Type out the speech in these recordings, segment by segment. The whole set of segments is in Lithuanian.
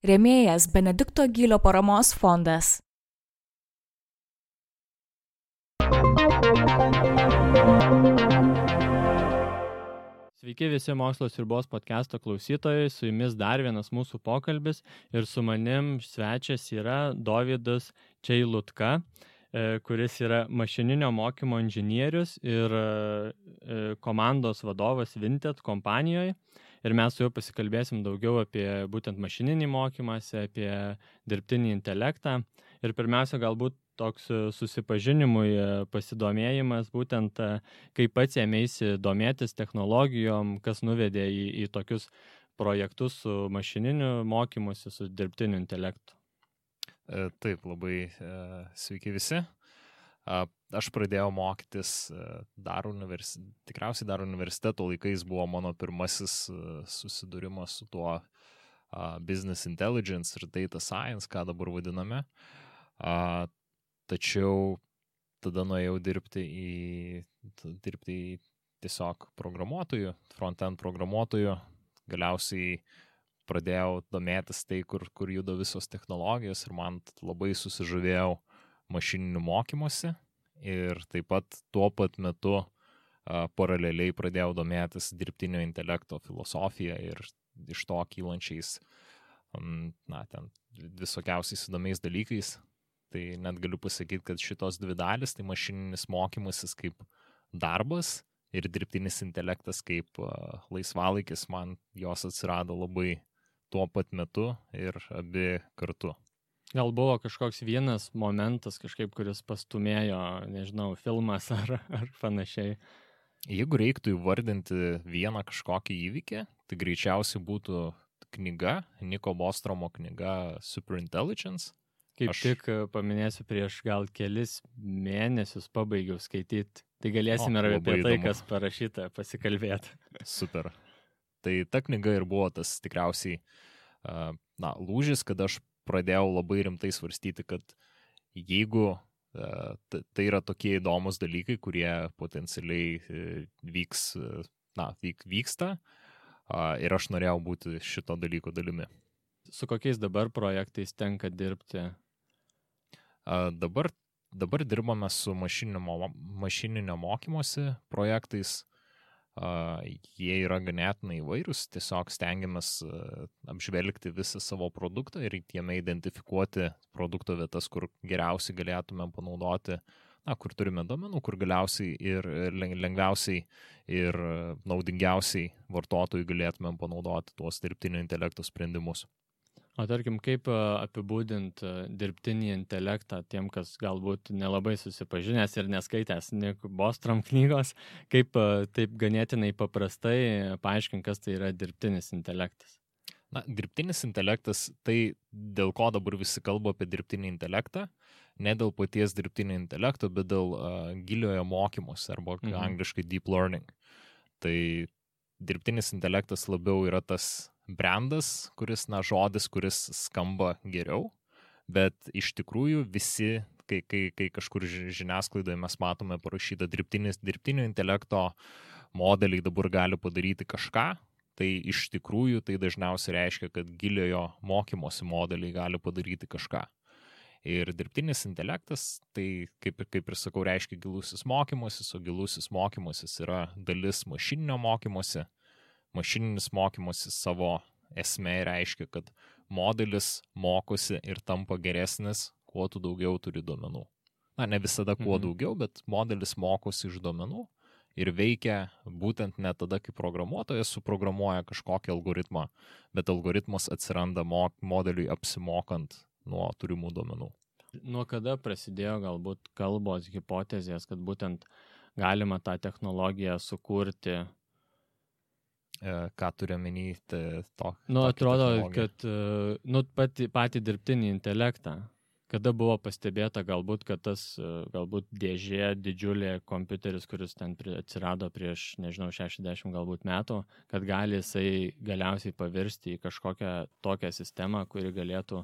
Rėmėjas Benedikto Gylio paramos fondas. Sveiki visi Mokslo sriubos podcast'o klausytojai, su jumis dar vienas mūsų pokalbis ir su manim svečias yra Dovydas Čeilutka, kuris yra mašininio mokymo inžinierius ir komandos vadovas Vinted kompanijoje. Ir mes su juo pasikalbėsim daugiau apie būtent mašininį mokymąsi, apie dirbtinį intelektą. Ir pirmiausia, galbūt toks susipažinimui pasidomėjimas, būtent kaip pats ėmėsi domėtis technologijom, kas nuvedė į tokius projektus su mašininiu mokymusi, su dirbtiniu intelektu. Taip, labai sveiki visi. Aš pradėjau mokytis tikriausiai dar universiteto laikais buvo mano pirmasis susidūrimas su tuo business intelligence ir data science, ką dabar vadiname. Tačiau tada nuėjau dirbti į tiesiog programuotojų, front-end programuotojų. Galiausiai pradėjau domėtis tai, kur juda visos technologijos ir man labai susižavėjau mašininiu mokymusi ir taip pat tuo pat metu paraleliai pradėjau domėtis dirbtinio intelekto filosofija ir iš to kylančiais ten visokiausiais įdomiais dalykais. Tai net galiu pasakyti, kad šitos dvi dalis, tai mašininis mokymasis kaip darbas ir dirbtinis intelektas kaip laisvalaikis, man jos atsirado labai tuo pat metu ir abi kartu. Gal buvo kažkoks vienas momentas kažkaip, kuris pastumėjo, nežinau, filmas ar panašiai? Jeigu reiktų įvardinti vieną kažkokį įvykį, tai greičiausiai būtų knyga, Niko Bostromo knyga Superintelligence. Tik paminėsiu, prieš gal kelis mėnesius pabaigiau skaityti. Tai galėsime ir apie tai, kas parašyta, pasikalbėti. Super. Tai ta knyga ir buvo tas tikriausiai lūžis, kad aš pradėjau labai rimtai svarstyti, kad jeigu tai yra tokie įdomus dalykai, kurie potencialiai vyksta ir aš norėjau būti šito dalyko dalimi. Su kokiais dabar projektais tenka dirbti? Dabar dirbame su mašininio mokymosi projektais. Jie yra ganėtinai įvairūs, tiesiog stengiamės apžvelgti visą savo produktą ir jame identifikuoti produkto vietas, kur geriausiai galėtume panaudoti, kur turime duomenų, kur galiausiai ir lengviausiai ir naudingiausiai vartotojui galėtume panaudoti tuos dirbtinio intelekto sprendimus. O tarkim, kaip apibūdint dirbtinį intelektą tiem, kas galbūt nelabai susipažinęs ir neskaitęs Niko Bostrom knygos, kaip taip ganėtinai paprastai paaiškint, kas tai yra dirbtinis intelektas? Dirbtinis intelektas, tai dėl ko dabar visi kalba apie dirbtinį intelektą, ne dėl paties dirbtinio intelekto, bet dėl giliojo mokymosi arba angliškai deep learning. Tai dirbtinis intelektas labiau yra tas brandas, žodis, kuris skamba geriau, bet iš tikrųjų visi, kai kažkur žiniasklaidoje mes matome parašytą dirbtinio intelekto modeliai dabar gali padaryti kažką, tai iš tikrųjų tai dažniausiai reiškia, kad giliojo mokymosi modeliai gali padaryti kažką. Ir dirbtinis intelektas, tai kaip ir sakau, reiškia gilusis mokymasis, o gilusis mokymasis yra dalis mašininio mokymosi. Mašininis mokymasis savo esmė reiškia, kad modelis mokosi ir tampa geresnis, kuo tu daugiau turi duomenų. Ne visada kuo daugiau, bet modelis mokosi iš duomenų ir veikia būtent ne tada, kai programuotojas suprogramuoja kažkokį algoritmą, bet algoritmas atsiranda modeliui apsimokant nuo turimų duomenų. Nuo kada prasidėjo galbūt kalbos hipotezės, kad būtent galima tą technologiją sukurti? Ką turiu omeny to? Atrodo, kad patį dirbtinį intelektą, kada buvo pastebėta galbūt, kad tas galbūt dėžė didžiulė kompiuteris, kuris ten atsirado prieš, 60 galbūt metų, kad gali jisai galiausiai pavirsti į kažkokią tokią sistemą, kuri galėtų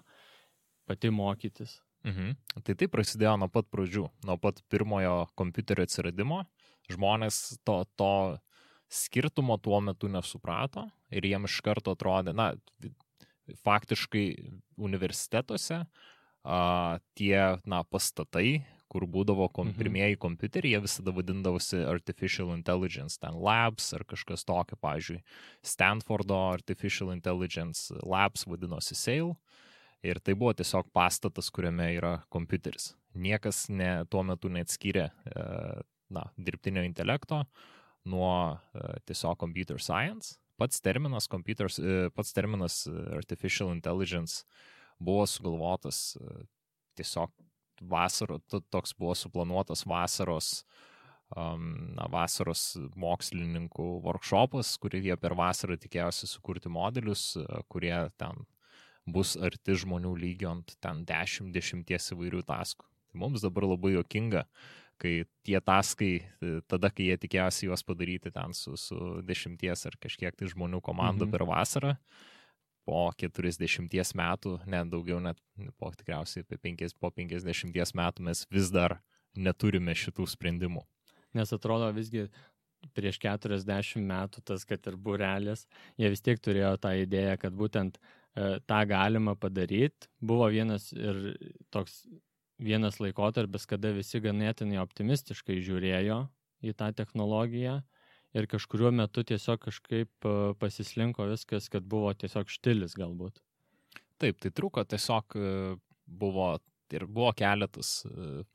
pati mokytis. Tai prasidėjo nuo pat pradžių, nuo pat pirmojo kompiuterio atsiradimo. Žmonės to skirtumo tuo metu nesuprato ir jiem iš karto atrodė, faktiškai universitetuose tie pastatai, kur būdavo pirmieji kompiuteriai, jie visada vadindavosi Artificial Intelligence, ten Labs ar kažkas tokio, pavyzdžiui, Stanfordo Artificial Intelligence Labs vadinosi SAIL, ir tai buvo tiesiog pastatas, kuriame yra kompiuteris. Niekas tuo metu neatskyrė dirbtinio intelekto nuo tiesiog computer science. Pats terminas Artificial Intelligence buvo sugalvotas tiesiog toks buvo suplanuotas vasaros mokslininkų workshopas, kurį jie per vasarą tikėjosi sukurti modelius, kurie ten bus arti žmonių lygio ant ten 10 įvairių taskų. Tai mums dabar labai juokinga, kai tie taskai, tada, kai jie tikėjosi juos padaryti ten su 10 ar kažkiek tai žmonių komanda per vasarą, po 40 metų, net daugiau, net po tikriausiai po 50 metų mes vis dar neturime šitų sprendimų. Nes atrodo visgi prieš 40 metų tas, kad ir būrelis, jie vis tiek turėjo tą idėją, kad būtent tą galima padaryti. Buvo vienas laikotarpis, kada visi ganėtinai optimistiškai žiūrėjo į tą technologiją. Ir kažkuriuo metu tiesiog kažkaip pasislinko viskas, kad buvo tiesiog štilis galbūt. Taip, tai truko tiesiog buvo keletas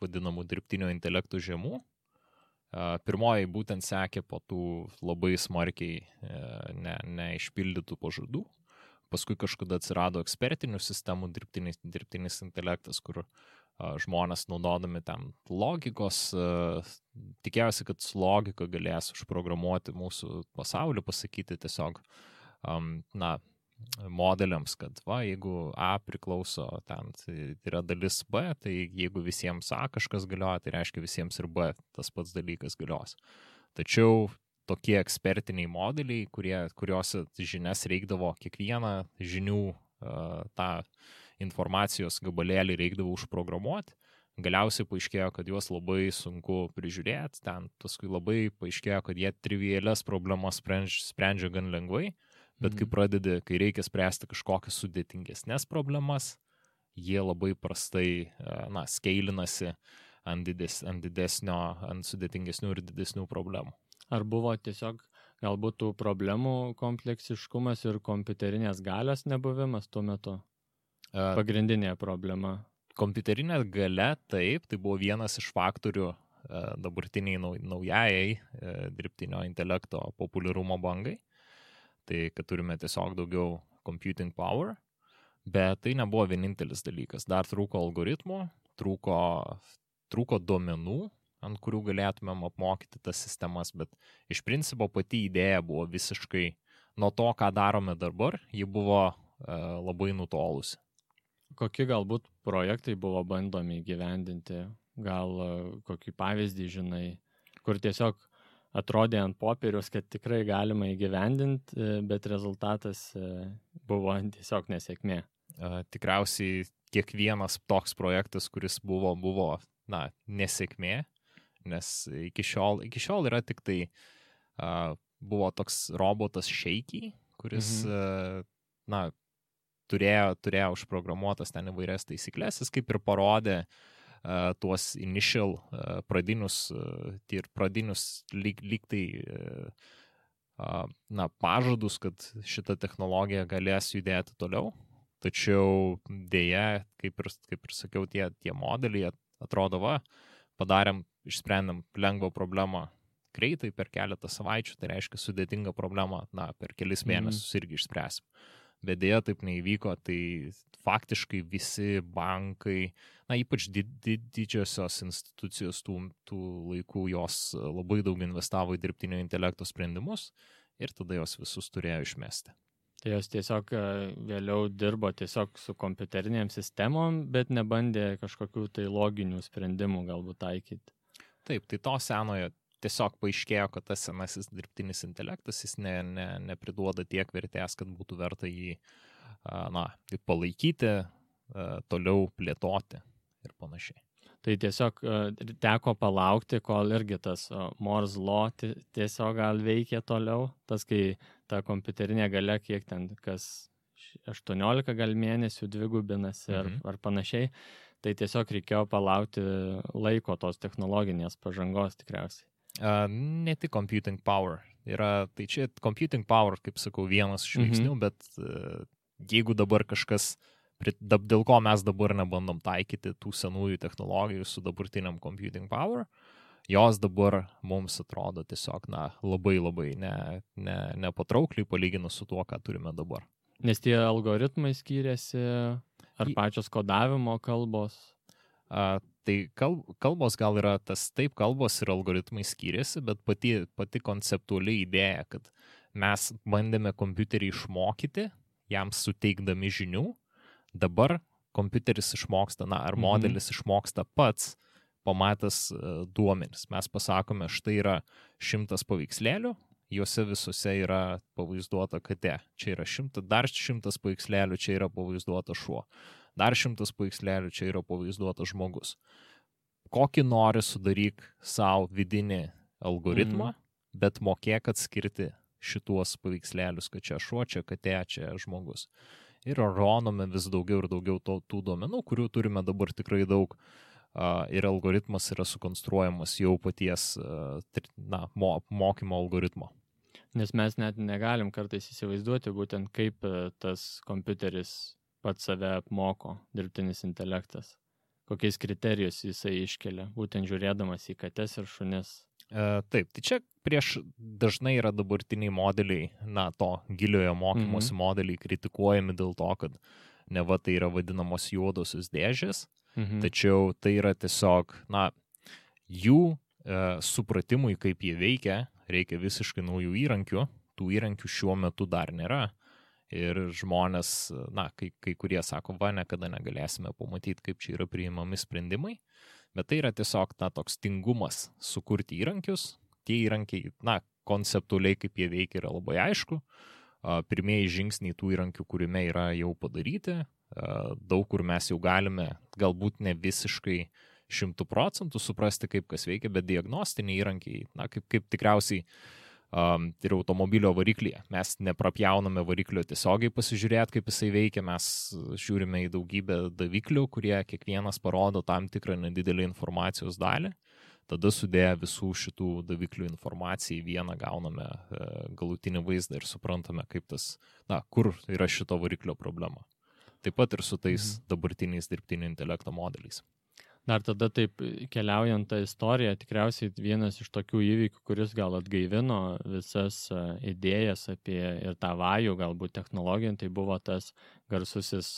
vadinamų dirbtinio intelektų žiemų. Pirmoji būtent sekė po tų labai smarkiai neišpildytų pažadų. Paskui kažkada atsirado ekspertinių sistemų dirbtinis intelektas, kur žmonės naudodami ten logikos, tikėjosi, kad su logika galės užprogramuoti mūsų pasaulį, pasakyti tiesiog modeliams, kad jeigu A priklauso ten, tai yra dalis B, tai jeigu visiems A kažkas galioja, tai reiškia visiems ir B tas pats dalykas galios. Tačiau tokie ekspertiniai modeliai, kuriuose žinias reikdavo kiekvieną žinių tą informacijos gabalėlį reikdavo užprogramuoti, galiausiai paaiškėjo, kad juos labai sunku prižiūrėti, ten paskui labai paaiškėjo, kad jie trivialias problemas sprendžia gan lengvai, bet kai reikia spręsti kažkokias sudėtingesnės problemas, jie labai prastai skeilinasi ant sudėtingesnių ir didesnių problemų. Ar buvo tiesiog galbūt tų problemų kompleksiškumas ir kompiuterinės galios nebuvimas tuo metu? Pagrindinė problema. Kompiuterinė galia, taip, tai buvo vienas iš faktorių dabartiniai naujajai dirbtinio intelekto populiarumo bangai. Tai, kad turime tiesiog daugiau computing power, bet tai nebuvo vienintelis dalykas. Dar trūko algoritmų, trūko duomenų, ant kurių galėtumėm apmokyti tas sistemas, bet iš principo pati idėja buvo visiškai nuo to, ką darome dabar, ji buvo labai nutolusi. Kokie galbūt projektai buvo bandomi įgyvendinti? Gal kokį pavyzdį žinai, kur tiesiog atrodė ant popieriaus, kad tikrai galima įgyvendinti, bet rezultatas buvo tiesiog nesėkmė? Tikriausiai kiekvienas toks projektas, kuris buvo nesėkmė, nes iki šiol yra tik tai buvo toks robotas Shaky, kuris turėjo užprogramuotas ten įvairias taisyklės, jis kaip ir parodė tuos initial pradinius lyg tai pažadus, kad šita technologija galės judėti toliau. Tačiau dėja, kaip ir sakiau, tie modeliai atrodo, išsprendėm lengvą problemą greitai per keletą savaičių, tai reiškia sudėtingą problemą, per kelis mėnesius irgi išspręsim. Bet dėja taip neįvyko, tai faktiškai visi bankai, ypač didžiosios institucijos tų laikų, jos labai daug investavo į dirbtinio intelekto sprendimus ir tada jos visus turėjo išmesti. Tai jos tiesiog vėliau dirbo tiesiog su kompiuterinėm sistemom, bet nebandė kažkokių tai loginių sprendimų galbūt taikyti. Taip, tai to senojo tiesiog paaiškėjo, kad tas senasis dirbtinis intelektas, jis nepriduoda tiek vertės, kad būtų verta jį palaikyti, toliau plėtoti ir panašiai. Tai tiesiog teko palaukti, kol irgi tas Moore's Law tiesiog gal veikia toliau, tas kai ta kompiuterinė galia, kiek ten kas 18 gal mėnesių dvigubinasi ar panašiai. Tai tiesiog reikėjo palaukti laiko tos technologinės pažangos tikriausiai. Ne tik computing power. Tai čia computing power, kaip sakau, vienas iš veiksnių, bet jeigu dabar kažkas, dėl ko mes dabar nebandom taikyti tų senųjų technologijų su dabartiniam computing power, jos dabar mums atrodo tiesiog labai nepatraukliai palyginus su tuo, ką turime dabar. Nes tie algoritmai skiriasi, ar pačios kodavimo kalbos? Tai kalbos gal yra taip, kalbos ir algoritmai skiriasi, bet pati konceptuali idėja, kad mes bandėme kompiuterį išmokyti, jam suteikdami žinių, dabar kompiuteris išmoksta, ar modelis išmoksta pats, pamatęs duomenis. Mes pasakome, štai yra 100 paveikslėlių, juose visose yra pavaizduota katė. Čia yra dar 100 paveikslėlių, čia yra pavaizduota šuo. Dar 100 paveikslėlių, čia yra pavaizduotas žmogus. Kokį nori sudaryk savo vidinį algoritmą, bet mokėk atskirti šituos paveikslėlius, kad čia šuo, čia katė, čia žmogus. Ir ronome vis daugiau ir daugiau tų duomenų, kurių turime dabar tikrai daug, ir algoritmas yra sukonstruojamas jau paties mokymo algoritmo. Nes mes net negalim kartais įsivaizduoti būtent kaip tas kompiuteris pats save apmoko, dirbtinis intelektas. Kokiais kriterijus jisai iškelia, būtent žiūrėdamas į kates ir šunis. Taip, tai čia dažnai yra dabartiniai modeliai, to giliojo mokymosi modeliai kritikuojami dėl to, kad neva tai yra vadinamos juodosios dėžės, tačiau tai yra tiesiog, jų supratimui, kaip jie veikia, reikia visiškai naujų įrankių, tų įrankių šiuo metu dar nėra. Ir žmonės, kai kurie sako, niekada negalėsime pamatyti, kaip čia yra priimami sprendimai, bet tai yra tiesiog toks tingumas sukurti įrankius. Tie įrankiai, konceptualiai, kaip jie veikia, yra labai aišku. Pirmieji žingsniai tų įrankių kūrime yra jau padaryti. Daug kur mes jau galime, galbūt ne visiškai 100% suprasti, kaip kas veikia, bet diagnostiniai įrankiai, kaip tikriausiai ir automobilio variklyje. Mes neprapjauname variklio tiesiogiai pasižiūrėti, kaip jisai veikia, mes žiūrime į daugybę daviklių, kurie kiekvienas parodo tam tikrą nedidelį informacijos dalį. Tada sudėję visų šitų daviklių informaciją į vieną gauname galutinį vaizdą ir suprantame, kaip kur yra šito variklio problema. Taip pat ir su tais dabartiniais dirbtinio intelekto modeliais. Dar tada taip keliaujant tą istoriją, tikriausiai vienas iš tokių įvykių, kuris gal atgaivino visas idėjas apie ir tą vajų galbūt technologiją, tai buvo tas garsusis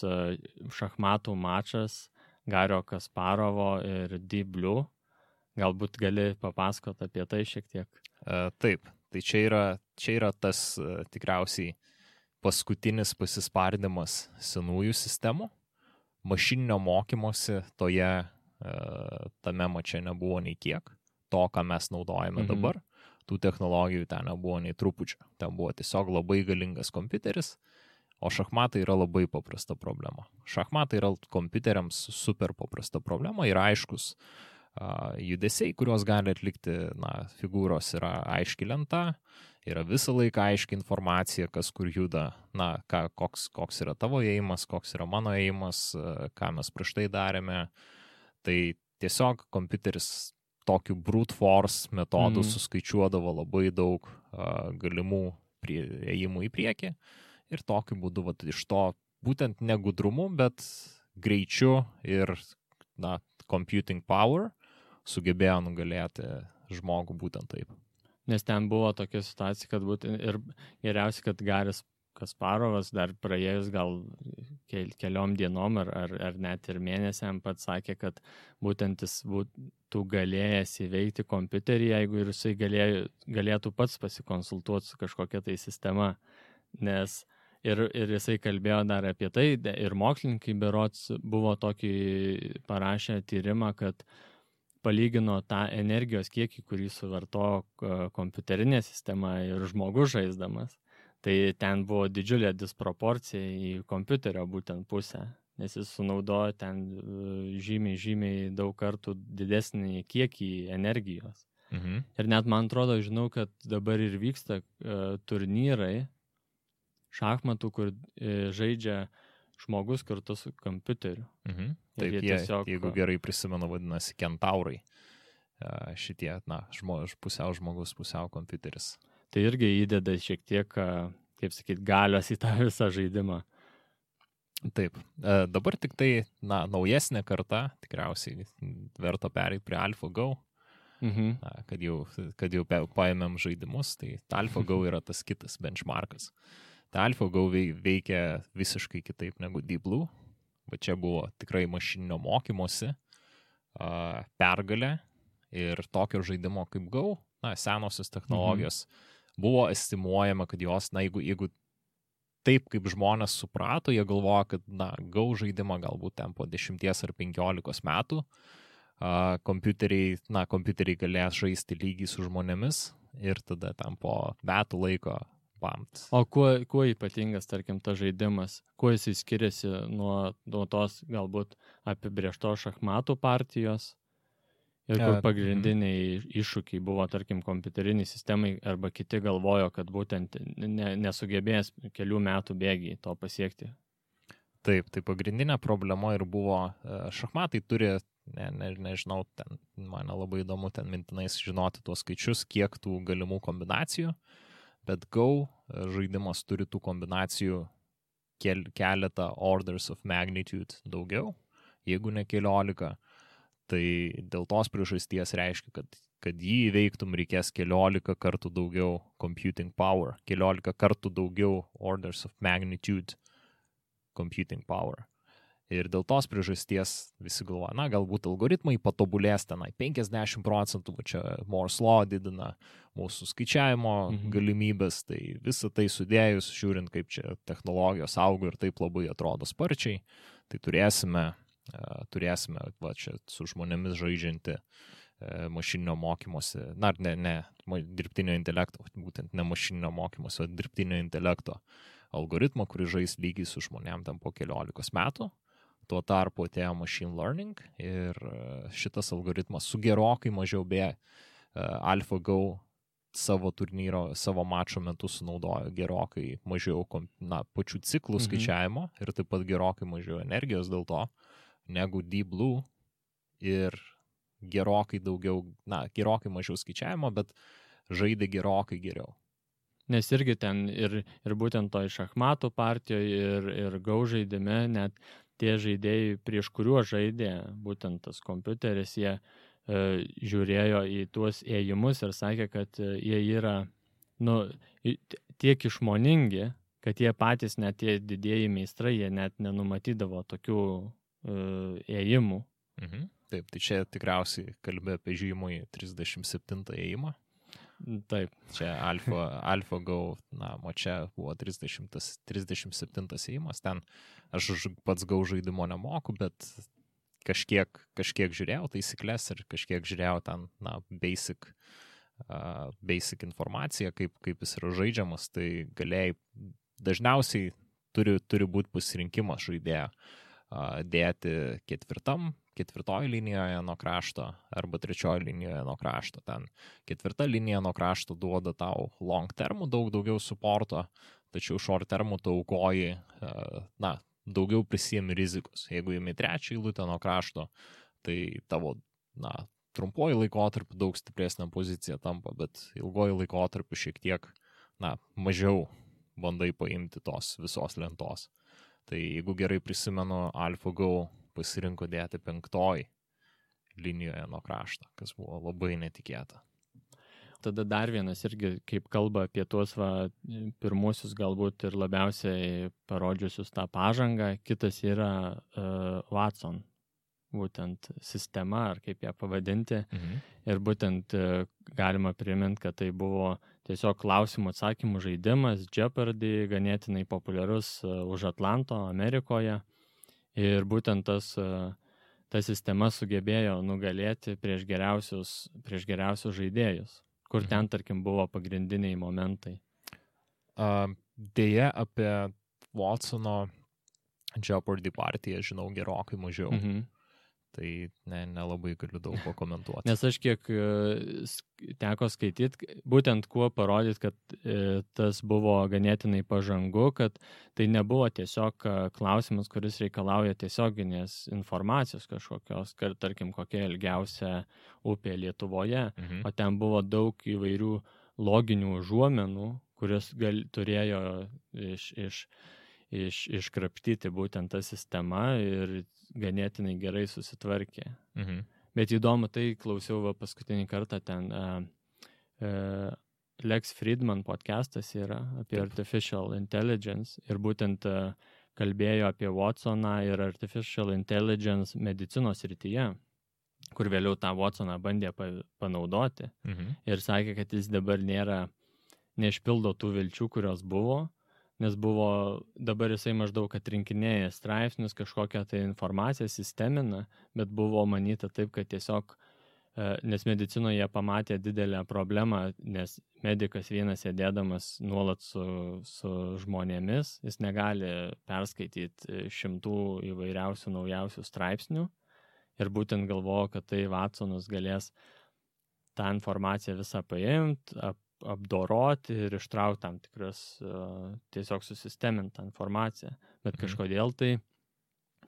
šachmatų mačas Gario Kasparovo ir Deep Blue. Galbūt gali papasakoti apie tai šiek tiek? Taip, tai čia yra tas tikriausiai paskutinis pasispardymas senųjų sistemų. Mašininio mokymosi tame mače nebuvo nei kiek. To, ką mes naudojame dabar, tų technologijų ten nebuvo nei trupučio. Ten buvo tiesiog labai galingas kompiuteris, o šachmatai yra labai paprasta problema. Šachmatai yra kompiuteriams super paprasta problema ir aiškus judesiai, kuriuos gali atlikti, figūros yra aiški lenta, yra visą laiką aiški informacija, kas kur juda, koks yra tavo ėjimas, koks yra mano ėjimas, ką mes prieš tai darėme. Tai tiesiog kompiuteris tokiu brute force metodu suskaičiuodavo labai daug galimų ėjimų į priekį ir tokiu būdu iš to būtent ne gudrumu, bet greičiu ir computing power sugebėjo nugalėti žmogų būtent taip. Nes ten buvo tokia situacija, kad būtent ir geriausia, kad Garis Kasparovas dar praėjus gal keliom dienom ar net ir mėnesiam pats sakė, kad būtent jis būtų galėjęs įveikti kompiuterį, jeigu ir jisai galėtų pats pasikonsultuoti su kažkokia tai sistema. Nes ir jisai kalbėjo dar apie tai, ir mokslininkai berods buvo tokį parašę tyrimą, kad palygino tą energijos kiekį, kurį suvarto kompiuterinė sistema ir žmogus žaisdamas. Tai ten buvo didžiulė disproporcija į kompiuterio būtent pusę, nes jis sunaudojo ten žymiai daug kartų didesnį kiekį energijos. Ir net man atrodo, žinau, kad dabar ir vyksta turnyrai, šachmatų, kur žaidžia žmogus kartu su kompiuteriu. Taip, jie tiesiog, jeigu gerai prisimenu, vadinasi kentaurai. Šitie, pusiau žmogus, pusiau kompiuteris. Tai irgi įdeda šiek tiek, kaip sakyt, galios į tą visą žaidimą. Taip, dabar tik tai, naujesnė karta, tikriausiai verta pereiti prie AlphaGo, kad jau paėmėm žaidimus, tai AlphaGo yra tas kitas benchmarkas. Tai AlphaGo veikia visiškai kitaip negu Deep Blue, bet čia buvo tikrai mašininio mokymosi pergalė ir tokio žaidimo kaip Go, senosios technologijos, buvo estimuojama, kad jos, jeigu taip kaip žmonės suprato, jie galvoja, kad Go žaidimą galbūt ten po 10 ar 15 metų kompiuteriai galės žaisti lygiai su žmonėmis ir tada ten po metų laiko pamt. O kuo ypatingas, tarkim, tas žaidimas? Kuo jis skiriasi nuo tos galbūt apibrėžtos šachmatų partijos? Ir kur pagrindiniai iššūkiai buvo, tarkim, kompiuteriniai sistemai arba kiti galvojo, kad būtent nesugebės kelių metų bėgiai to pasiekti? Taip, tai pagrindinė problema ir buvo, šachmatai turi, nežinau, ten, mane labai įdomu ten mintinais žinoti tuos skaičius, kiek tų galimų kombinacijų, bet Go žaidimas turi tų kombinacijų keletą orders of magnitude daugiau, jeigu ne 14. Tai dėl tos priežasties reiškia, kad jį įveiktum reikės 14 kartų daugiau computing power, 14 kartų daugiau orders of magnitude computing power. Ir dėl tos priežasties visi galvoja, galbūt algoritmai patobulės tenai 50%, čia Moore's Law didina mūsų skaičiavimo galimybės, tai visą tai sudėjus, žiūrint, kaip čia technologijos auga ir taip labai atrodo sparčiai, tai turėsime čia su žmonėmis žaidžianti mašininio mokymosi, ne dirbtinio intelekto, būtent ne mašininio mokymosi, o dirbtinio intelekto algoritmą, kuris žais lygiai su žmonėm ten po 15 metų. Tuo tarpu atėjo machine learning ir šitas algoritmas su gerokai mažiau AlphaGo savo turnyro, savo mačo metu sunaudojo gerokai mažiau pačių ciklų skaičiavimo ir taip pat gerokai mažiau energijos dėl to negu Deep Blue ir gerokai mažiau skaičiavimo, bet žaidė gerokai geriau. Nes irgi ten ir būtent toj šachmatų partijoje ir Go žaidime net tie žaidėjai, prieš kuriuos žaidė būtent tas kompiuteris, jie žiūrėjo į tuos ėjimus ir sakė, kad jie yra tiek išmoningi, kad jie patys, net tie didieji meistrai, jie net nenumatydavo tokių ėjimų. Taip, tai čia tikriausiai kalbė apie žymųjį 37 ėjimą. Taip. Čia AlphaGo, čia buvo 37 ėjimas, ten aš pats Go žaidimo nemoku, bet kažkiek žiūrėjau taisyklės ir kažkiek žiūrėjau ten, basic informaciją, kaip jis yra žaidžiamas, tai galėjai, dažniausiai turi būti pasirinkimas žaidėjo dėti ketvirtoji linijoje nuo krašto arba trečioji linijoje nuo krašto. Ten ketvirta linija nuo krašto duoda tau long termų daug daugiau supporto, tačiau short termų tu aukoji, daugiau prisiemi rizikos. Jeigu imi trečią eilutę nuo krašto, tai tavo, trumpuoju laikotarpiu daug stipresnė pozicija tampa, bet ilgoju laikotarpiu šiek tiek, mažiau bandai paimti tos visos lentos. Tai jeigu gerai prisimenu, AlphaGo pasirinko dėti 5 linijoje nuo krašto, kas buvo labai netikėta. Tada dar vienas irgi, kaip kalba apie tuos pirmusius galbūt ir labiausiai parodžiusius tą pažangą, kitas yra Watson, būtent sistema, ar kaip ją pavadinti. Ir būtent galima priminti, kad tai buvo tiesiog klausimų atsakymų žaidimas, Jeopardy, ganėtinai populiarus už Atlanto, Amerikoje. Ir būtent ta sistema sugebėjo nugalėti prieš geriausius žaidėjus, kur ten, tarkim, buvo pagrindiniai momentai. Deja, apie Watsono Jeopardy partiją žinau gerokai mažiau. Tai nelabai galiu daug pakomentuoti. Nes aš kiek teko skaityti, būtent kuo parodyti, kad tas buvo ganėtinai pažangu, kad tai nebuvo tiesiog klausimas, kuris reikalauja tiesioginės informacijos kažkokios, kad tarkim kokia ilgiausia upė Lietuvoje, o ten buvo daug įvairių loginių užuomenų, kurios turėjo iškrapštyti būtent tą sistemą ir ganėtinai gerai susitvarkė. Bet įdomu, tai klausiau paskutinį kartą ten Lex Fridman podcastas yra apie Artificial Intelligence ir būtent kalbėjo apie Watsoną ir Artificial Intelligence medicinos srityje, kur vėliau tą Watsoną bandė panaudoti ir sakė, kad jis dabar neišpildo tų vilčių, kurios buvo, nes dabar jisai maždaug atrinkinėja straipsnius, kažkokią tai informaciją sistemina, bet buvo manyta taip, kad tiesiog, nes medicinoje pamatė didelę problemą, nes medikas vienas sėdėdamas nuolat su žmonėmis, jis negali perskaityti šimtų įvairiausių naujausių straipsnių ir būtent galvojo, kad tai Watsonas galės tą informaciją visą paimti, apdoroti ir ištraukti tam tikras, tiesiog susistemintą informaciją. Bet kažkodėl tai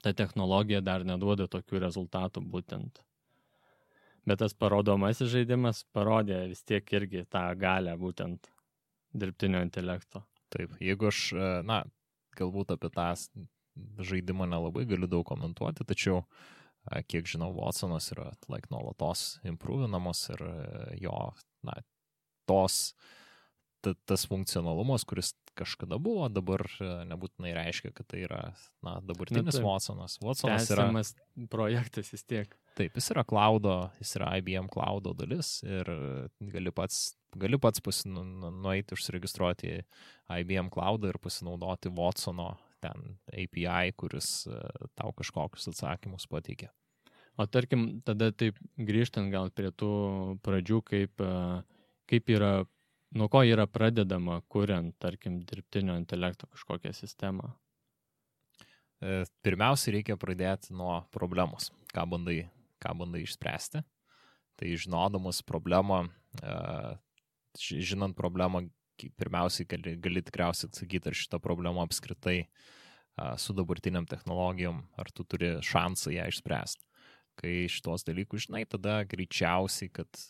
ta technologija dar neduoda tokių rezultatų būtent. Bet tas parodomasis žaidimas parodė vis tiek irgi tą galę būtent dirbtinio intelekto. Taip, jeigu aš, galbūt apie tą žaidimą nelabai galiu daug komentuoti, tačiau kiek žinau, Watsonas yra nuolatos improvinamos ir jo, tas funkcionalumas, kuris kažkada buvo, dabar nebūtinai reiškia, kad tai yra dabartinis Watsonas. Watsonas yra projektas vis tiek. Taip, jis yra cloudo, jis yra IBM cloudo dalis ir gali pats nueiti užsiregistruoti IBM cloudą ir pasinaudoti Watsono ten API, kuris tau kažkokius atsakymus pateikia. O tarkim, tada taip grįžtant gal prie tų pradžių, kaip yra, nuo ko yra pradedama, kuriant, tarkim, dirbtinio intelekto kažkokią sistemą? Pirmiausia, reikia pradėti nuo problemos, ką bandai išspręsti. Tai žinodamas problemą, žinant problemą, pirmiausiai gali tikriausiai atsakyti, ar šitą problemą apskritai su dabartiniam technologijom, ar tu turi šansą ją išspręsti. Kai šitos dalykus žinai, tada greičiausiai, kad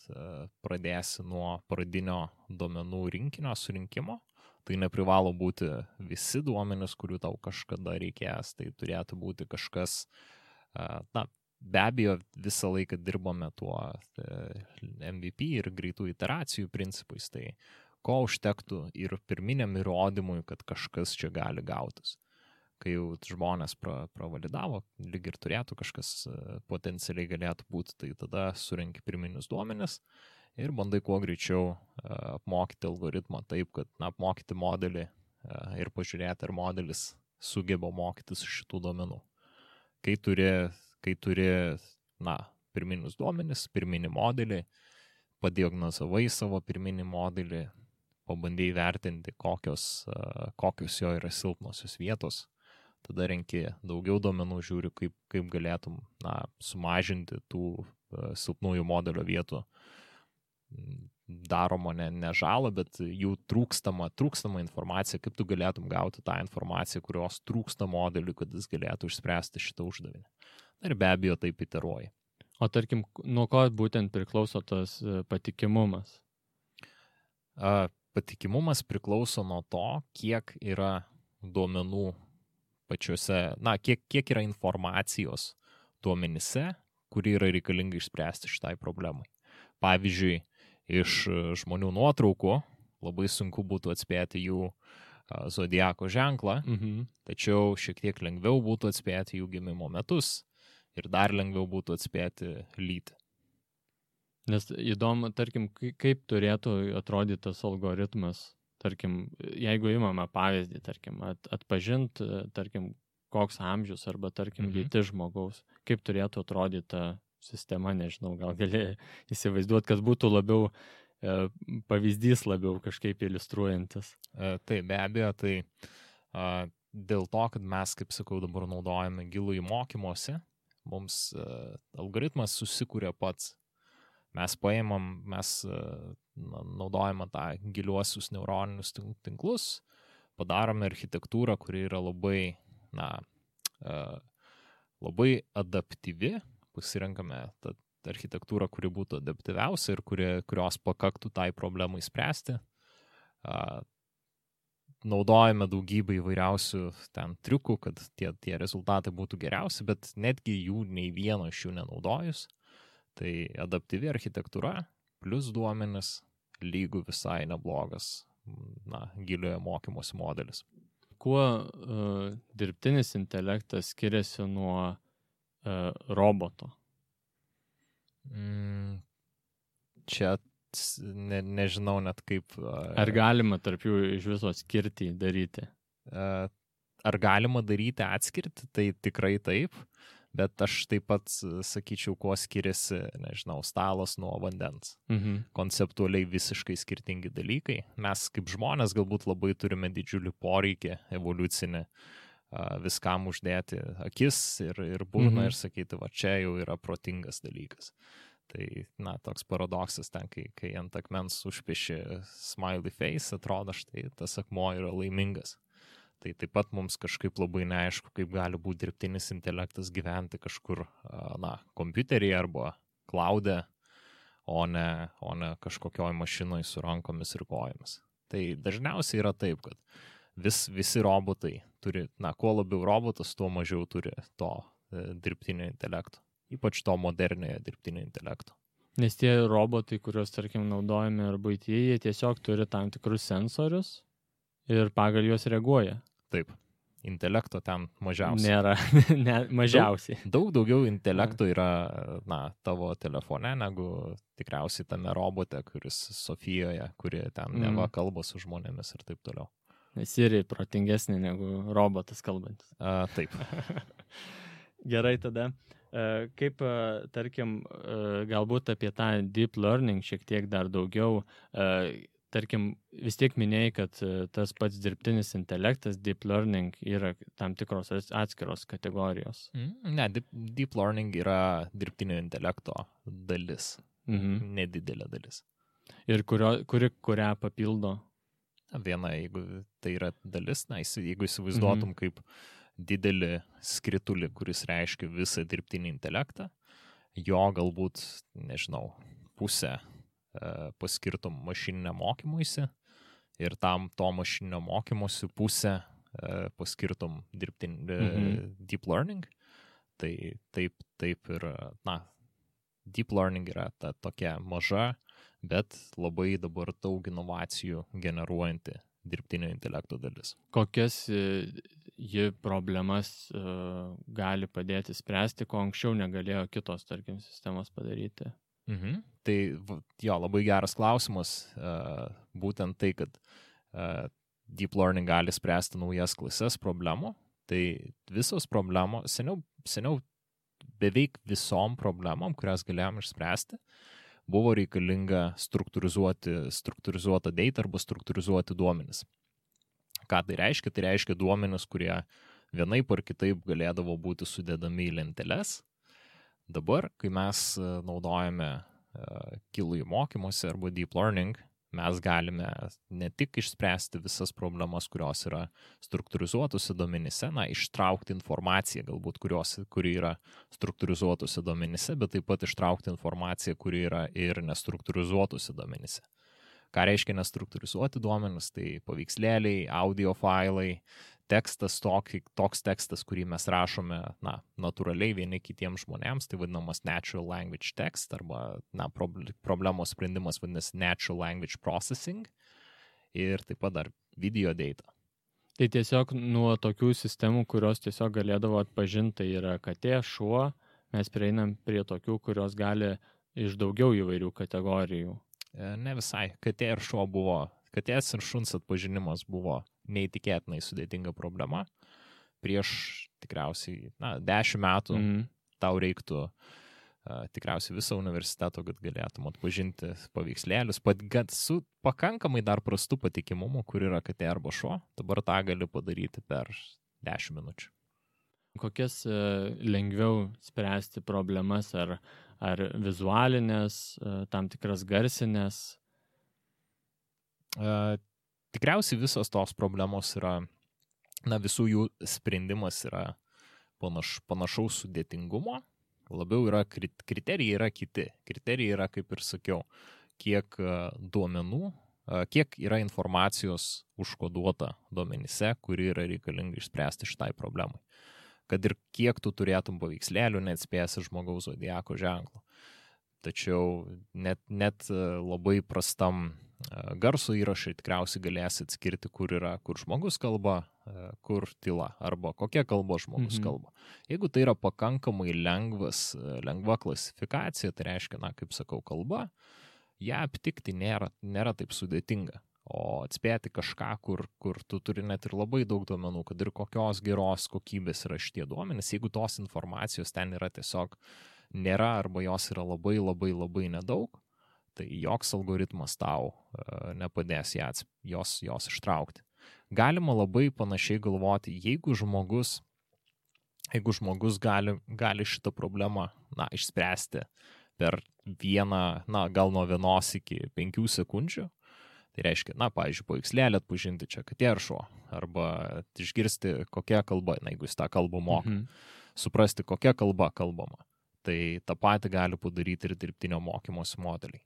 pradėsi nuo pradinio duomenų rinkinio surinkimo. Tai neprivalo būti visi duomenys, kurių tau kažkada reikės. Tai turėtų būti kažkas, be abejo, visą laiką dirbame tuo MVP ir greitų iteracijų principais. Tai ko užtektų ir pirminiam įrodymui, kad kažkas čia gali gautis. Kai jau žmonės pravalidavo, lyg ir turėtų kažkas potencialiai galėtų būti, tai tada surenki pirminius duomenis ir bandai kuo greičiau apmokyti algoritmą taip, kad apmokyti modelį ir pažiūrėti, ar modelis sugeba mokytis iš šitų duomenų. Kai turi pirminius duomenis, pirminį modelį, padiagnozavai savo pirminį modelį, pabandai vertinti, kokios jo yra silpnosios vietos, tada renki daugiau duomenų, žiūri, kaip galėtum sumažinti tų silpnųjų modelio vietų daroma ne žalą, bet jų trūkstama informacija, kaip tu galėtum gauti tą informaciją, kurios trūksta modeliui, kad jis galėtų išspręsti šitą uždavinį. Ir be abejo taip iteruoji. O tarkim, nuo ko būtent priklauso tas patikimumas? Patikimumas priklauso nuo to, kiek yra duomenų pačiuose, kiek yra informacijos duomenyse, kuri yra reikalinga išspręsti šitai problemai. Pavyzdžiui, iš žmonių nuotraukų labai sunku būtų atspėti jų zodiako ženklą, tačiau šiek tiek lengviau būtų atspėti jų gimimo metus ir dar lengviau būtų atspėti lytį. Nes įdomu, tarkim, kaip turėtų atrodyti tas algoritmas. Tarkim, jeigu imame pavyzdį, tarkim, atpažint, tarkim, koks amžius arba, tarkim, lytis žmogaus, kaip turėtų atrodyti ta sistema, nežinau, gal gali įsivaizduoti, kad būtų labiau pavyzdys labiau kažkaip iliustruojantis. Tai be abejo, tai dėl to, kad mes, kaip sakau, dabar naudojame gilųjį mokymosi, mums algoritmas susikūrė pats. Mes naudojame tą giliuosius neuroninius tinklus, padarome architektūrą, kuri yra labai, labai adaptyvi, pasirenkame tą architektūrą, kuri būtų adaptyviausia ir kurios pakaktų tai problemai spręsti. Naudojame daugybę įvairiausių ten triukų, kad tie rezultatai būtų geriausi, bet netgi jų nei vieno iš jų nenaudojus. Tai adaptyvi architektūra plus duomenis lygų visai neblogas giliojo mokymosi modelis. Kuo dirbtinis intelektas skiriasi nuo roboto? Čia nežinau net kaip... Ar galima tarp jų iš viso skirtį daryti? Ar galima daryti atskirti? Tai tikrai taip, bet aš taip pat sakyčiau, kuo skiriasi, nežinau, stalas nuo vandens. Konceptualiai visiškai skirtingi dalykai. Mes kaip žmonės galbūt labai turime didžiulį poreikį evoliucinį viskam uždėti akis ir burną ir sakyti, va čia jau yra protingas dalykas. Tai, toks paradoksas ten, kai ant akmens užpieši smiley face, atrodo, štai tas akmuo yra laimingas. Tai taip pat mums kažkaip labai neaišku, kaip gali būti dirbtinis intelektas gyventi kažkur, kompiuteryje arba cloud'e, o ne kažkokioj mašinoj su rankomis ir kojomis. Tai dažniausiai yra taip, kad visi robotai turi, kuo labiau robotas, tuo mažiau turi to dirbtinio intelekto. Ypač to moderniojo dirbtinio intelekto. Nes tie robotai, kuriuos, tarkim, naudojame ar buityje, jie tiesiog turi tam tikrus sensorius ir pagal juos reaguoja. Taip, intelekto ten mažiausiai. Nėra, mažiausiai. Daug daugiau intelekto yra, tavo telefone, negu tikriausiai tame robote, kuris Sofijoje, kuri ten neva kalba su žmonėmis ir taip toliau. Siri protingesnė negu robotas kalbantis. Taip. Gerai tada. Kaip, tarkim, galbūt apie tą deep learning šiek tiek dar daugiau, tarkim, vis tiek minėjai, kad tas pats dirbtinis intelektas, deep learning, yra tam tikros atskiros kategorijos. Ne, deep learning yra dirbtinio intelekto dalis, nedidelė dalis. Ir kurią papildo? Viena, jeigu tai yra dalis, jeigu įsivaizduotum kaip didelį skritulį, kuris reiškia visą dirbtinį intelektą, jo galbūt, nežinau, pusę paskirtum mašininio mokymuisi ir to mašininio mokymosi pusę paskirtum deep learning. Tai taip ir, deep learning yra ta tokia maža, bet labai dabar daug inovacijų generuojanti dirbtinio intelekto dalis. Kokias ji problemas gali padėti spręsti, ko anksčiau negalėjo kitos, tarkim, sistemos padaryti? Tai jo, labai geras klausimas. Būtent tai, kad deep learning gali spręsti naujas klases problemų. Tai visos problemos, seniau beveik visom problemom, kurias galėjom išspręsti, buvo reikalinga struktūrizuota data arba struktūrizuoti duomenis. Ką tai reiškia? Tai reiškia duomenis, kurie vienaip ar kitaip galėdavo būti sudedami į lenteles. Dabar, kai mes naudojame gilųjį mokymosi arba deep learning, mes galime ne tik išspręsti visas problemas, kurios yra struktūrizuotose duomenyse, ištraukti informaciją galbūt, kuri yra struktūrizuotose duomenyse, bet taip pat ištraukti informaciją, kuri yra ir nestruktūrizuotose duomenyse. Ką reiškia nestruktūrizuoti duomenys? Tai paveikslėliai, audio failai, tekstas, toks tekstas, kurį mes rašome natūraliai vieni kitiems žmonėms, tai vadinamas natural language text, arba problemos sprendimas vadinasi natural language processing, ir taip pat dar video data. Tai tiesiog nuo tokių sistemų, kurios tiesiog galėdavo atpažinti, tai yra katė, šuo, mes prieinam prie tokių, kurios gali iš daugiau įvairių kategorijų. Ne visai. Katė ir šuo katės ir šuns atpažinimas buvo neįtikėtinai sudėtinga problema. Prieš tikriausiai 10 metų tau reiktų tikriausiai viso universiteto, kad galėtum atpažinti paveikslėlius, su pakankamai dar prastu patikimumu, kur yra katė arba šuo. Dabar tą gali padaryti per 10 minučių. Kokias lengviau spręsti problemas, ar vizualinės, tam tikras garsinės? Tikriausiai visos tos problemos yra, visų jų sprendimas yra panašaus sudėtingumo, labiau yra kriterijai yra kiti. Kriterijai yra, kaip ir sakiau, kiek duomenų, kiek yra informacijos užkoduota duomenyse, kuri yra reikalinga išspręsti šitai problemai. Kad ir kiek tu turėtum paveikslėlių, neatspėsi žmogaus zodiako ženklo. Tačiau net labai prastam garso įrašai tikriausiai galėsi atskirti, kur žmogus kalba, kur tyla, arba kokia kalba žmogus kalba. Jeigu tai yra pakankamai lengva klasifikacija, tai reiškia, kaip sakau, kalba, ją aptikti nėra taip sudėtinga. O atspėti kažką, kur tu turi net ir labai daug duomenų, kad ir kokios geros kokybės yra šitie duomenys, jeigu tos informacijos ten yra tiesiog nėra arba jos yra labai labai labai nedaug, tai joks algoritmas tau nepadės jos ištraukti. Galima labai panašiai galvoti, jeigu žmogus gali šitą problemą išspręsti per gal nuo 1 iki 5 sekundžių, tai reiškia, pavyzdžiui, paveikslėlį atpažinti čia katė ar šuo, arba išgirsti kokia kalba, jeigu jis tą kalbą moka, suprasti kokia kalba kalbama. Tai tą patį gali padaryti ir dirbtinio mokymosi modeliai.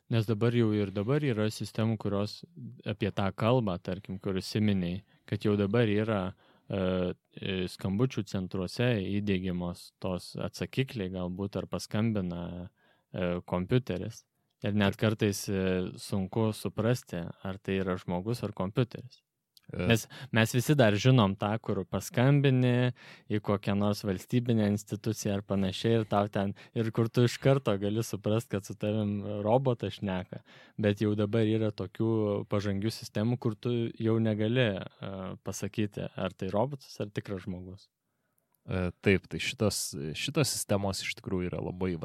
Nes dabar yra sistemų, kurios apie tą kalbą, tarkim, kur įsiminiai, kad jau dabar yra skambučių centruose įdiegiamos tos atsakikliai galbūt ar paskambina kompiuteris. Ir net kartais sunku suprasti, ar tai yra žmogus ar kompiuteris. Nes mes visi dar žinom tą, kur paskambini į kokią nors valstybinę instituciją ar panašiai ir kur tu iš karto gali suprasti, kad su tavim robotas šneka. Bet jau dabar yra tokių pažangių sistemų, kur tu jau negali pasakyti, ar tai robotas ar tikras žmogus. Taip, tai šitos sistemos iš tikrųjų yra labai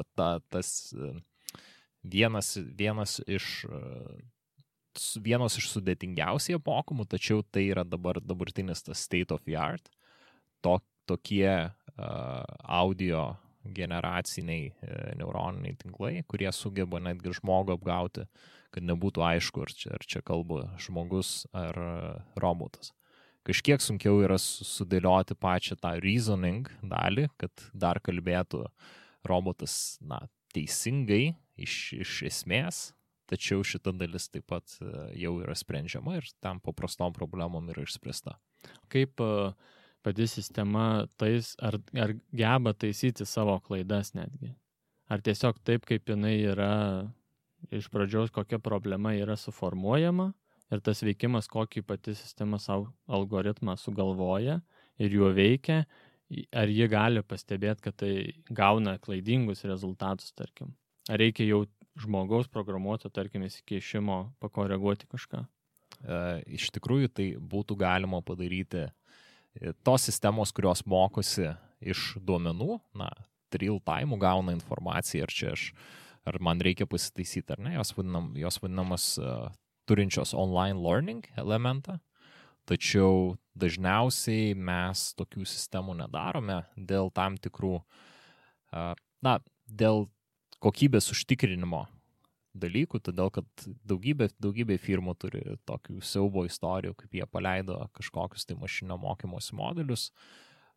tas vienas iš sudėtingiausiai apmokomų, tačiau tai yra dabartinis tas state of the art. Tokie audio generaciniai neuroniniai tinklai, kurie sugeba netgi žmogų apgauti, kad nebūtų aišku, ar čia kalba žmogus ar robotas. Kažkiek sunkiau yra sudėlioti pačią tą reasoning dalį, kad dar kalbėtų robotas teisingai iš esmės, tačiau šita dalis taip pat jau yra sprendžiama ir tam paprastom problemom yra išspręsta. Kaip pati sistema ar geba taisyti savo klaidas netgi? Ar tiesiog taip, kaip jinai yra iš pradžios, kokia problema yra suformuojama ir tas veikimas, kokį pati sistema savo algoritmą sugalvoja ir juo veikia, ar ji gali pastebėti, kad tai gauna klaidingus rezultatus, tarkim? Ar reikia jau žmogaus programuoto, tarkim, įsikeišimo pakoreguoti kažką? Iš tikrųjų, tai būtų galima padaryti tos sistemos, kurios mokosi iš duomenų, real time gauna informaciją, ar man reikia pasitaisyti, ar ne, jos vadinamas turinčios online learning elementą, tačiau dažniausiai mes tokių sistemų nedarome dėl tam tikrų, dėl kokybės užtikrinimo dalykų, todėl kad daugybė firmų turi tokių siaubo istorijų, kaip jie paleido kažkokius tai mašininio mokymosi modelius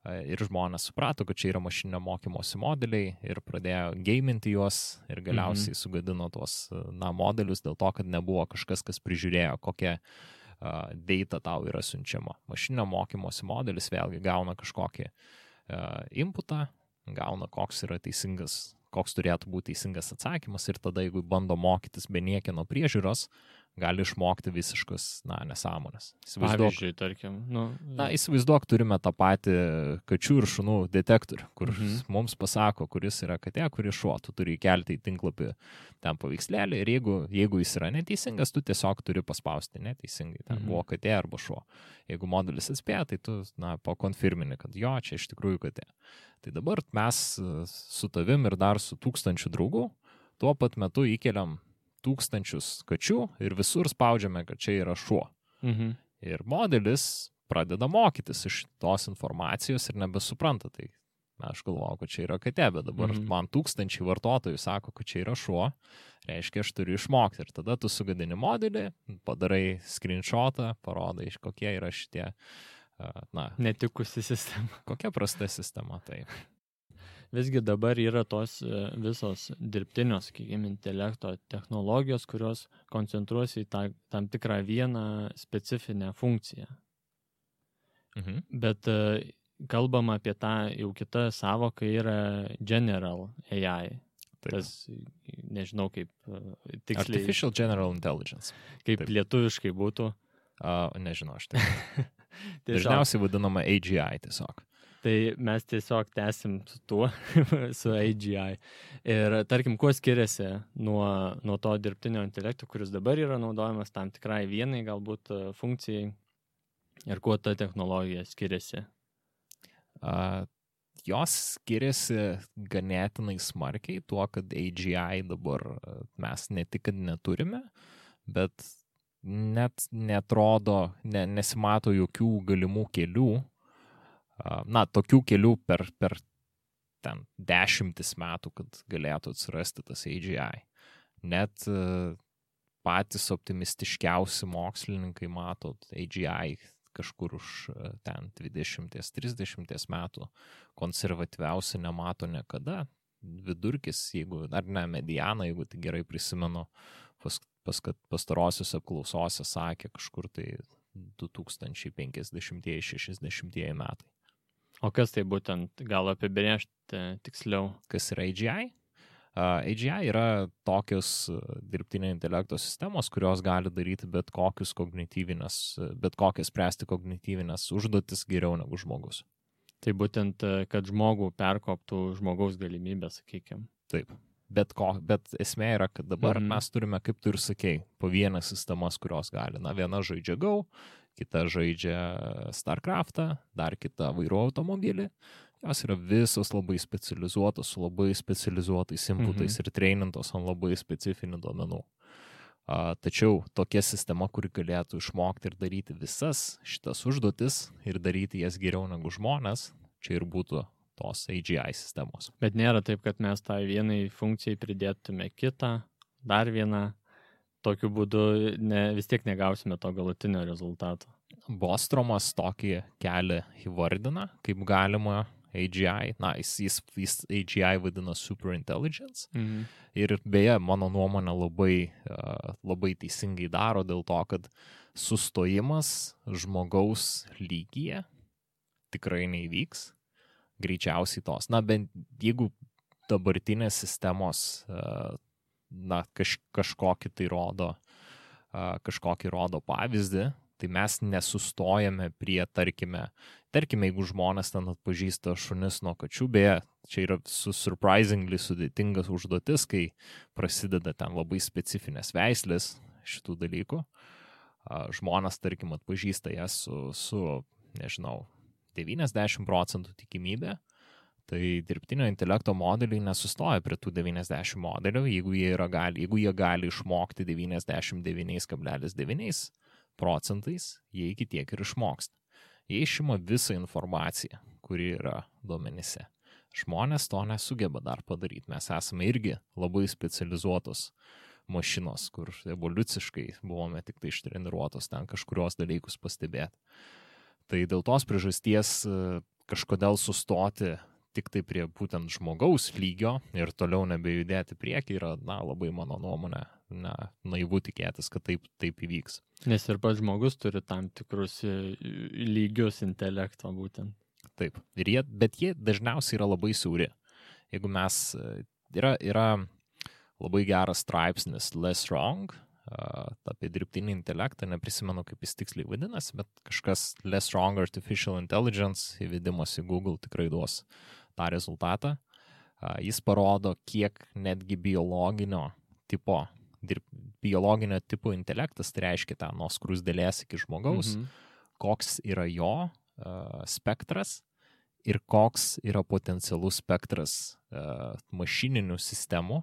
ir žmonės suprato, kad čia yra mašininio mokymosi modeliai ir pradėjo gaminti juos ir galiausiai sugadino tuos modelius dėl to, kad nebuvo kažkas, kas prižiūrėjo, kokia data tau yra siunčiama. Mašininio mokymosi modelis vėlgi gauna kažkokį inputą, gauna koks yra teisingas, koks turėtų būti teisingas atsakymas ir tada, jeigu bando mokytis be niekieno priežiūros, gali išmokti visiškas, nesąmonės. Pavyzdžiui, tarkim. Įsivaizduok, turime tą patį kačių ir šunų detektorių, kur mums pasako, kuris yra katė, kuris šuo. Tu turi įkelti į tinklapį ten paveikslėlį ir jeigu jis yra neteisingas, tu tiesiog turi paspausti neteisingai. Ten buvo katė arba šuo. Jeigu modelis atspėja, tai tu pakonfirmini, kad jo, čia iš tikrųjų katė. Tai dabar mes su tavim ir dar su 1000 draugų tuo pat metu įkeliam 1000 kačių ir visur spaudžiame, kad čia yra šuo. Ir modelis pradeda mokytis iš tos informacijos ir nebesupranta. Tai aš galvojau, kad čia yra katė, bet dabar man tūkstančiai vartotojų sako, kad čia yra šuo, reiškia, aš turiu išmokti. Ir tada tu sugadini modelį, padarai screenshotą, parodai, kokie yra šitie, netikusi sistema. Kokia prasta sistema, tai. Visgi dabar yra tos visos dirbtinio, sakykime, intelekto technologijos, kurios koncentruosi į tam tikrą vieną specifinę funkciją. Bet kalbama apie tą jau kitą savoką yra general AI. Taip. Tas, nežinau kaip tiksliai. Artificial General Intelligence. Kaip Taip. Lietuviškai būtų. Nežinau, aš tai. Dažniausiai vadinama AGI tiesiog. Tai mes tiesiog tęsim su tuo, su AGI. Ir tarkim, kuo skiriasi nuo to dirbtinio intelekto, kuris dabar yra naudojamas tam tikrai vienai galbūt funkcijai, ir kuo ta technologija skiriasi? Jos skiriasi ganėtinai smarkiai tuo, kad AGI dabar mes ne tik, kad neturime, bet net netrodo, nesimato jokių galimų kelių, tokių kelių per ten 10 metų, kad galėtų atsirasti tas AGI. Net patys optimistiškiausi mokslininkai mato AGI kažkur už ten 20-30 metų, konservatyviausi nemato niekada. Vidurkis, mediana, jeigu tai gerai prisimenu, pastarosiuose apklausose sakė kažkur tai 2050-60 metai. O kas tai būtent, gal apibrėžti tiksliau? Kas yra AGI? AGI yra tokios dirbtinio intelekto sistemos, kurios gali daryti bet kokias spręsti kognityvinės užduotis geriau negu žmogus. Tai būtent, kad žmogų perkoptų žmogaus galimybę, sakykime. Taip. Bet esmė yra, kad dabar mes turime, kaip tu ir sakei, po vieną sistemas, kurios gali. Viena žaidžia Go, kita žaidžia StarCraftą, dar kita vairuoja automobilį. Jos yra visos labai specializuotos, su labai specializuotais inputais ir treinintos ant labai specifinių duomenų. Tačiau tokia sistema, kuri galėtų išmokti ir daryti visas šitas užduotis ir daryti jas geriau negu žmonės, čia ir būtų tos AGI sistemos. Bet nėra taip, kad mes tai vienai funkcijai pridėtume kitą, dar vieną, tokiu būdu vis tiek negausime to galutinio rezultato. Bostromas tokį kelią įvardina, kaip galima AGI, jis AGI vadina superintelligence. Ir beje, mano nuomonė labai teisingai daro dėl to, kad sustojimas žmogaus lygyje tikrai neįvyks. Greičiausiai tos. Bent jeigu dabartinės sistemos kažkokį rodo pavyzdį, tai mes nesustojame prie, tarkime, jeigu žmonės ten atpažįsta šunis nuo kačių, beje, čia yra surprisingly sudėtingas užduotis, kai prasideda ten labai specifinės veislės šitų dalykų. Žmonės, tarkim, atpažįsta jas su nežinau, 90% tikimybė, tai dirbtinio intelekto modeliai nesustoja prie tų 90 modelių, jeigu jie gali išmokti 99,9%, jie iki tiek ir išmoksta. Jie išima visą informaciją, kuri yra duomenyse. Žmonės to nesugeba dar padaryti. Mes esame irgi labai specializuotos mašinos, kur evoliuciškai buvome tik tai ištreniruotos ten kažkurios dalykus pastebėti. Tai dėl tos priežasties kažkodėl sustoti tik tai prie būtent žmogaus lygio ir toliau nebejudėti priekį yra, labai mano nuomonė, naivu tikėtis, kad taip įvyks. Nes ir pats žmogus turi tam tikrus lygius intelekto būtent. Taip, bet jie dažniausiai yra labai siauri. Jeigu yra labai geras straipsnis Less Wrong, apie dirbtinį intelektą, neprisimenu, kaip jis tiksliai vadinasi, bet kažkas Less Wrong Artificial Intelligence įvedimas į Google tikrai duos tą rezultatą. Jis parodo, kiek netgi biologinio tipo intelektas, tai reiškia ten nuo skruzdėlės iki žmogaus, koks yra jo spektras ir koks yra potencialus spektras mašininių sistemų,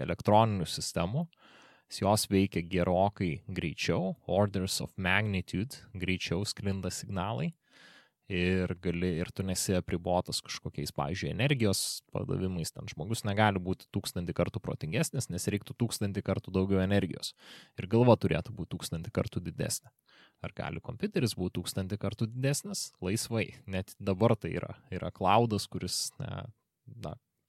elektroninių sistemų jos veikia gerokai greičiau, orders of magnitude greičiau sklinda signalai ir tu nesi apribotas kažkokiais, pavyzdžiui, energijos padavimais, ten žmogus negali būti 1000 kartų protingesnis, nes reiktų 1000 kartų daugiau energijos ir galva turėtų būti 1000 kartų didesnė. Ar gali kompiuteris būti 1000 kartų didesnis? Laisvai. Net dabar tai yra cloudas, kuris,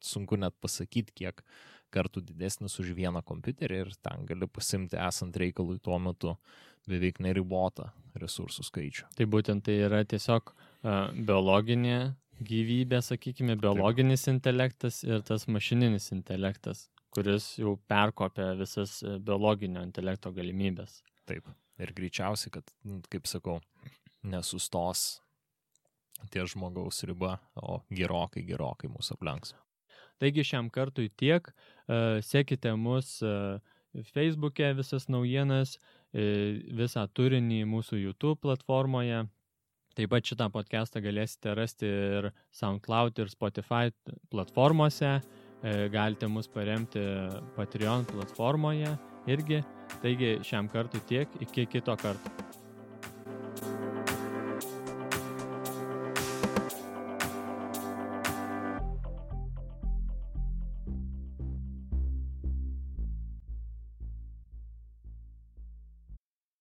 sunku net pasakyti, kiek kartų didesnis už vieną kompiuterį ir ten gali pasimti esant reikalui tuo metu beveik neribotą resursų skaičių. Tai būtent tai yra tiesiog biologinė gyvybė, sakykime, biologinis intelektas ir tas mašininis intelektas, kuris jau perkopia visas biologinio intelekto galimybės. Taip. Ir greičiausiai, kad, kaip sakau, nesustos ties žmogaus riba, o gerokai mūsų aplenks. Taigi šiam kartui tiek. Sekite mus Facebook'e visas naujienas, visą turinį mūsų YouTube platformoje. Taip pat šitą podcastą galėsite rasti ir SoundCloud ir Spotify platformose. Galite mus paremti Patreon platformoje irgi. Taigi šiam kartui tiek, iki kito karto.